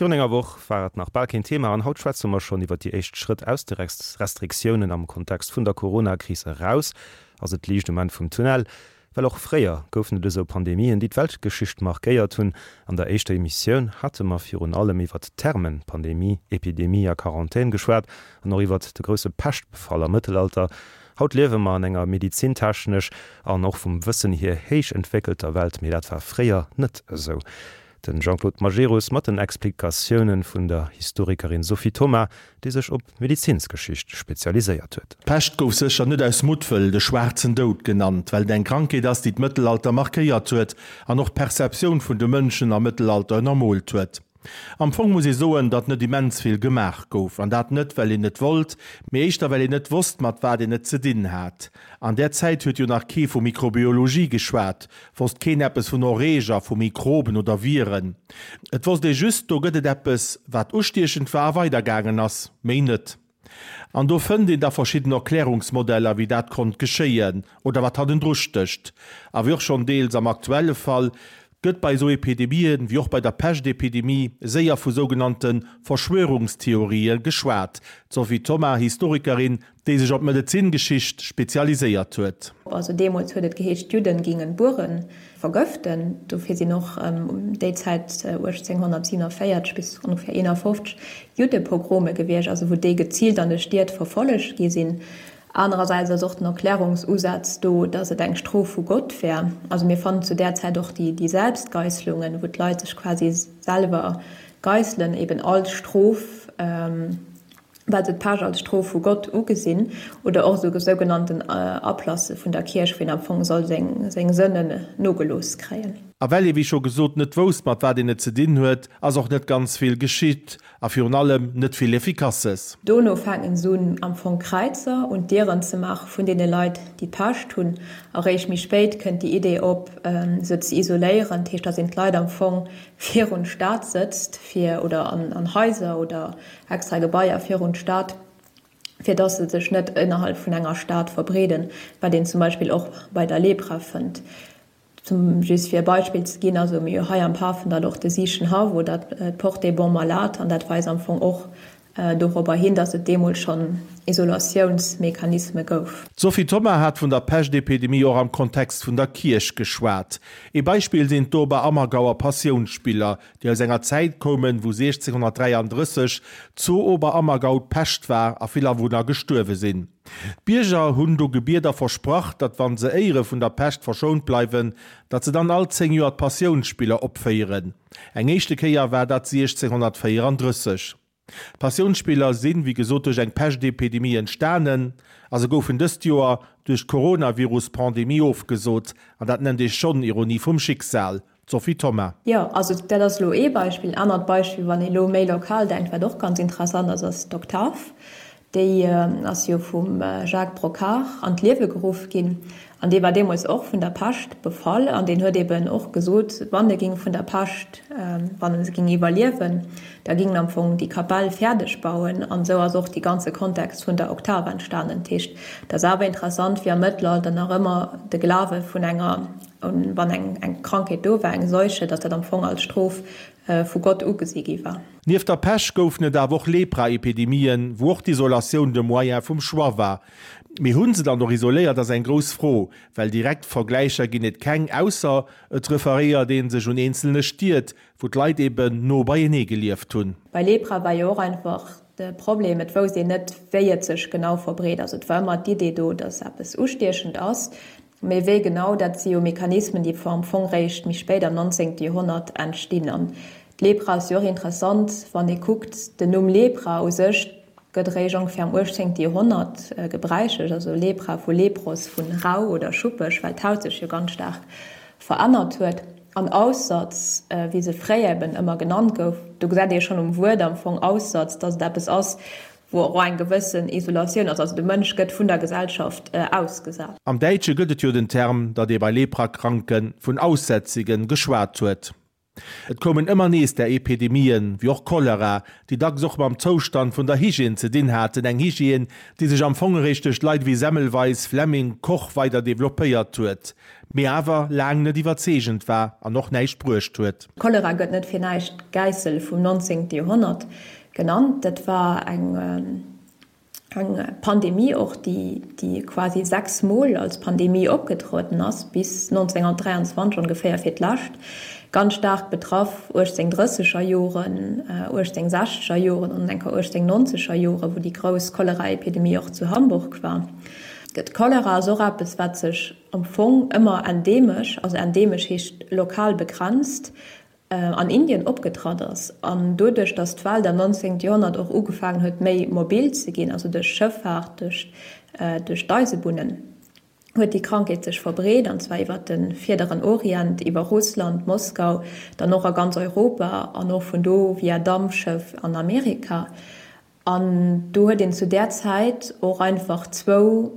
Virun enger Woch war et nach bal keen Thema an haut schwätze mer schonn iwwer déi éischt Schrëtt aus de Restriktiounen am Kontext vun der Corona-Kris eraus. Ass et d'Liicht um Enn vum Tunnel? Well och fréier goufen et esou Pandemien, déi d'Weltgeschicht markéiert hunn. An der éischter Emissioun hate mer virun allem iwwert d'Termen Pandemie, Epidemie a Quarantän geschwat an och iwwert de grousse Peschtbefall am Mëttelalter. Haut liewe mer an enger medizintechnesch an och vum Wëssen hier héich entwéckelter Welt, mee dat war fréier net esou. Den Jean-Claude Majerus mat den Explikatiounen vun der Historikerin Sophie Thoma, déi sech op d'Medezinsgeschicht spezialiséiert huet. D'Pescht gouf sécher net aus Muttwëll de schwaarzen Doud genannt, well et eng Krankheet ass, déi d'Mëttelalter markéiert huet an och d'Perceptioun vun de Mënschen am Mëttelalter ënnermoolt huet. Am Fong muss ee soen, datt net immens vill gemaach gouf, an dat net well een net wollt, mee éischter well een net wosst mat wat een et ze dinn hat. An där Zäit huet jo nach kee vu Mikrobiologie geschwat, wosst keen eppes vun Erreeger, vu Mikroben oder Viren. Et wosst ee just, do gëtt et eppes, wat ustiechend war a weidergaangen ass, méi net. An do fënnt een da verschidden Erklärungsmodeller, wéi dat konnt geschéien oder wat hannendru stécht. A wéi och schonn deels am aktuelle Fall, gëtt bei esou Epidemien, wéi och bei der Peschtepidemie, séier vu sougenannte Verschwörungstheorië geschwat. D'Sophie Thoma, Historikerin, déi sech op d'Medezingeschicht spezialiséiert huet. Also deemools huet et geheescht, d'Judden gingen d'Bueren vergëften. Dofir sinn och ëm déi Zäit 1847 bis ongeféier 51 Juddepogrome gewiescht, also wou déi geziilt an de Stied verfollegt gi sinn. Anerersäits ass och den Erklärungsusaz do, datt et eng Strof vu Gott wär. Also mir fannen zu där Zäit och déi Selbstgeisslungen, wou d'Leit sech quasi selwer geisselen, eben als Strof. Well se d'Pescht als Strof vu Gott ugesinn, oder och esou sougenannten Ablasse vun der Kierch, wou een am Fong soll seng Sënnen nogelooss kréien. A well ee wéi scho gesot net wousst mat wat een et ze dinn huet, ass och net ganz vill geschitt a virun allem net vill Effikasses. Dono fänken se un am Fong Kräizer un d'Dieren ze maache vun deene Leit déi d'Pescht hunn. Eréischt méi spéit kënnt déi Idee op se ze isoléieren, dat heescht datt een d'Leit am Fong virun d'Stad sëtzt fir oder an Haiser oder extra Gebaier virun d'Stad, fir dass se sech net innerhalb vun enger Stad verbreeden, wat een zum Beispill och bei der Lepra fënnt. Zum, just fir e Beispill ze ginn, also mir hu hei am Pafendall och de Siichenhaff oder d'Porte des Bons Malades an dat weist am Fong och dorobber hin, dass et deemools schonn Isolatiounsmechanisme gouf. D'Sophie Thoma hat vun der Peschtepidemie och am Kontext vun der Kierch geschwat. Ee Beispill sinn d'Oberammergauer Passiounsspiller, déi aus enger Zäit koumen, wou 1633 zu Oberammergau d'Pescht war a vill Awunner gestuerwe sinn. D'Bierger hunn do gebiet a versprach, datt wann se éiere vun der Pescht verschount bleiwen, datt se dann all 10 Joer d'Passiounsspiller opféieren. Eng éischte Kéier war dat 1634. D'Passiounsspiller sinn, wéi gesot, duerch eng Peschtepidemie entstanen a se goufen dëst Joer duerch d'Coronavirus-Pandemie ofgesot. An dat nennt ee schonn Ironie vum Schicksal. D'Sophie Thoma. Jo, also dat ass elo ee Beispill. En anert Beispill, wann ee elo méi lokal denkt, wat och ganz interessant ass, ass d'Oktav. Déi ass jo vum Jacques Brocquart an d'Liewe geruff ginn an dee war deemools och vun der Pescht befall an deen huet eben och gesot, wann e ging vun der Pescht, wann e se ging iwwerliewen, da ging en am Fong déi Kapell fäerdeg bauen. An esou ass och dee ganze Kontext vun der Oktav entstanen. Dat heescht, et ass awer interessant, wéi am Mëttelalter nach ëmmer de Glawe vun enger, wann eng Krankheet do war, eng Seuche, datt dat am Fong als Strof vu Gott ugesi gi war. Nieft der Pech goufen et awer och Lepra-Epidemien, wou och d'Isolatioun de Moyen vum Choix war. Mee hu se dann och isoléiert, ass eng grouss Fro, well direkt Vergläicher ginn et keng, ausser et referéiert ee sech un eenzelne Stied, wou d'Leit eben no beienee gelieft hunn. Bei Lepra war jo och einfach de Problem, et wousst een net, wéi et sech genau verbreet. Also et war ëmmer d'Idee do, datt eppes ustiechend ass, Mee wéi genau, dat si jo Mechanismen, déi am Fong réischt méi spéit am 19. Joerhonnert entstinn. An d'Lepra ass jo och interessant, wann ee kuckt, den Numm Lepra u sech gëtt eréischt ongeféier am 18. Joerhonnert gebräichlech, also Lepra vu Lepros, vu rau oder schuppeg, well d'Haut sech jo ganz staark verännert huet. An Aussatz, wéi se fréier eben ëmmer genannt gouf, do gesäit ee schonn um Wuert am Fong Aussatz, datt et eppes ass, wou och eng gewëssen Isolatioun ass, also de Mënsch gëtt vun der Gesellschaft ausgesat. Am Däitsche gëtt et jo den Term, datt ee bei Leprakranke vun Aussätzigen geschwat huet. Et koumen ëmmer nees där Epidemien, wéi och Cholera, déi dacks och mam Zoustand vun der Hygiène ze dinn haten, eng Hygiène, déi sech am Fong eréischt duerch Leit ewéi Semmelweis, Fleming, Koch weider developpéiert huet, mee awer laang net iwwerzeegend war an och näischt bruecht huet. Cholera gëtt net fir näischt d'Gäissel vum 19. Joerhonnert genannt. Dat war eng Eng Pandemie och, déi quasi 6 Mol als Pandemie opgetrueden ass, bis 1923 ongeféier fir d'lescht. Ganz staark betraff 1830er Joren, 1860er Joren an enker 1890er Joren, wou déi grouss Choleraepidemie och zu Hamburg war. D'Cholera ass och eppes, wat sech am Fong ëmmer endemesch, also endemesch heescht lokal begrenzt, an Indien opgetratt ass, an doduerch datt d'Welt am 19. Joerhonnert och ugefaangen huet méi mobil ze ginn, also duerch Schëffaart, duerch duerch d'Eisebunnen, huet déi Krankheet sech verbreet, an zwar iwwer de Vierderen Orient, iwwer Russland, Moskau, dann och a ganz Europa an och vun do via Dampschëff an Amerika. An do huet een zu där Zäit och einfach zwou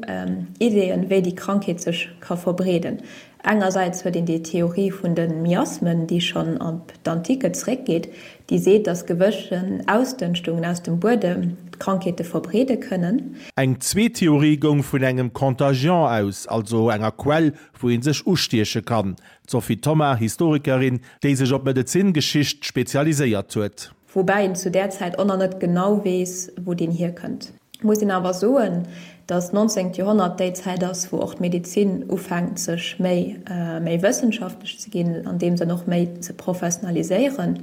Ideeën, wéi déi Krankheet sech ka verbreeden. Engersäits huet een déi Theorie vun de Miasmen, déi schonn op d'Antike zeréckgeet, déi seet, datt gewëssen Ausdënschtungen aus dem Buedem d'Krankheete verbreede kënnen. Eng zweet Theorie goung vun engem Contagion aus, also enger Quell, wou ee sech ustieche kann. D'Sophie Thoma, Historikerin, déi sech op d'Medezingeschicht spezialiséiert huet. Woubäi een zu där Zäit och nach net genau weess, wou deen hierkënnt. Muss een awer soen, datt d'nonzéngt Joerhonnert déi Zäit ass, wou och d'Medezin ufänkt sech méi méi wëssenschaftlech ze ginn, an deem Sënn och méi ze professionaliséieren,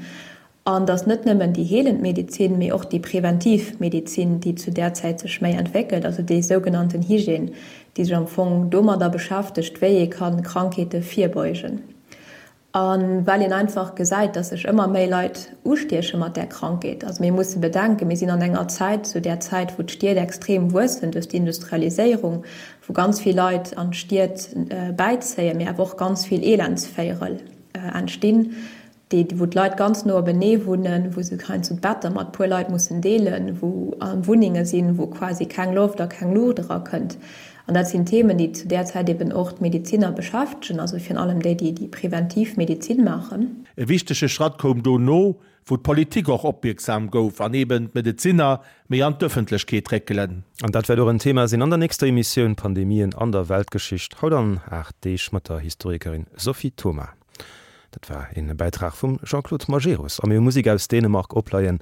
an datt net nëmmen déi heelend Medezin, mee och déi preventiv Medezin, déi zu där Zäit sech méi entwéckelt, also déi sougenannten Hygiène, déi sech am Fong domadder beschäftegt, wéi ee kann Krankheete virbeugen. A well een einfach gesäit, dass sech ëmmer méi Leit ustieche mat där Krankheet. Also mir musse bedenken, mir sinn an enger Zäit, zu där Zäit, wou d'Stied extrem wuessen duerch d'Industrialiséierung, wou ganz vill Leit an d'Stied bäizéien, mee awer och ganz vill Elendsvéierel entstinn, déi, wou d'Leit ganz no openee wunnen, wou se heiansdo d'Better mat puer Leit mussen deelen, wou Wunnenge sinn, wou quasi keng Loft a keng Luucht erakënnt. An dat sinn Themen, déi zu där Zäit eben och d'Medeziner beschäftegen, also virun allem déi, déi déi preventiv Medezin maachen. E wichtege Schratt koum dono, wou d'Politik och opmierksam gouf an eben d'Medezinner méi an d'Ëffentlechkeet réckelen. An dat wäert och en Thema sinn an der nächster Emissioun Pandemien an der Weltgeschicht, haut an 8 Deeg mat der Historikerin Sophie Thoma. Dat war een Bäitrag vum Jean-Claude Majerus. A mir hu Musek aus Dänemark opleien.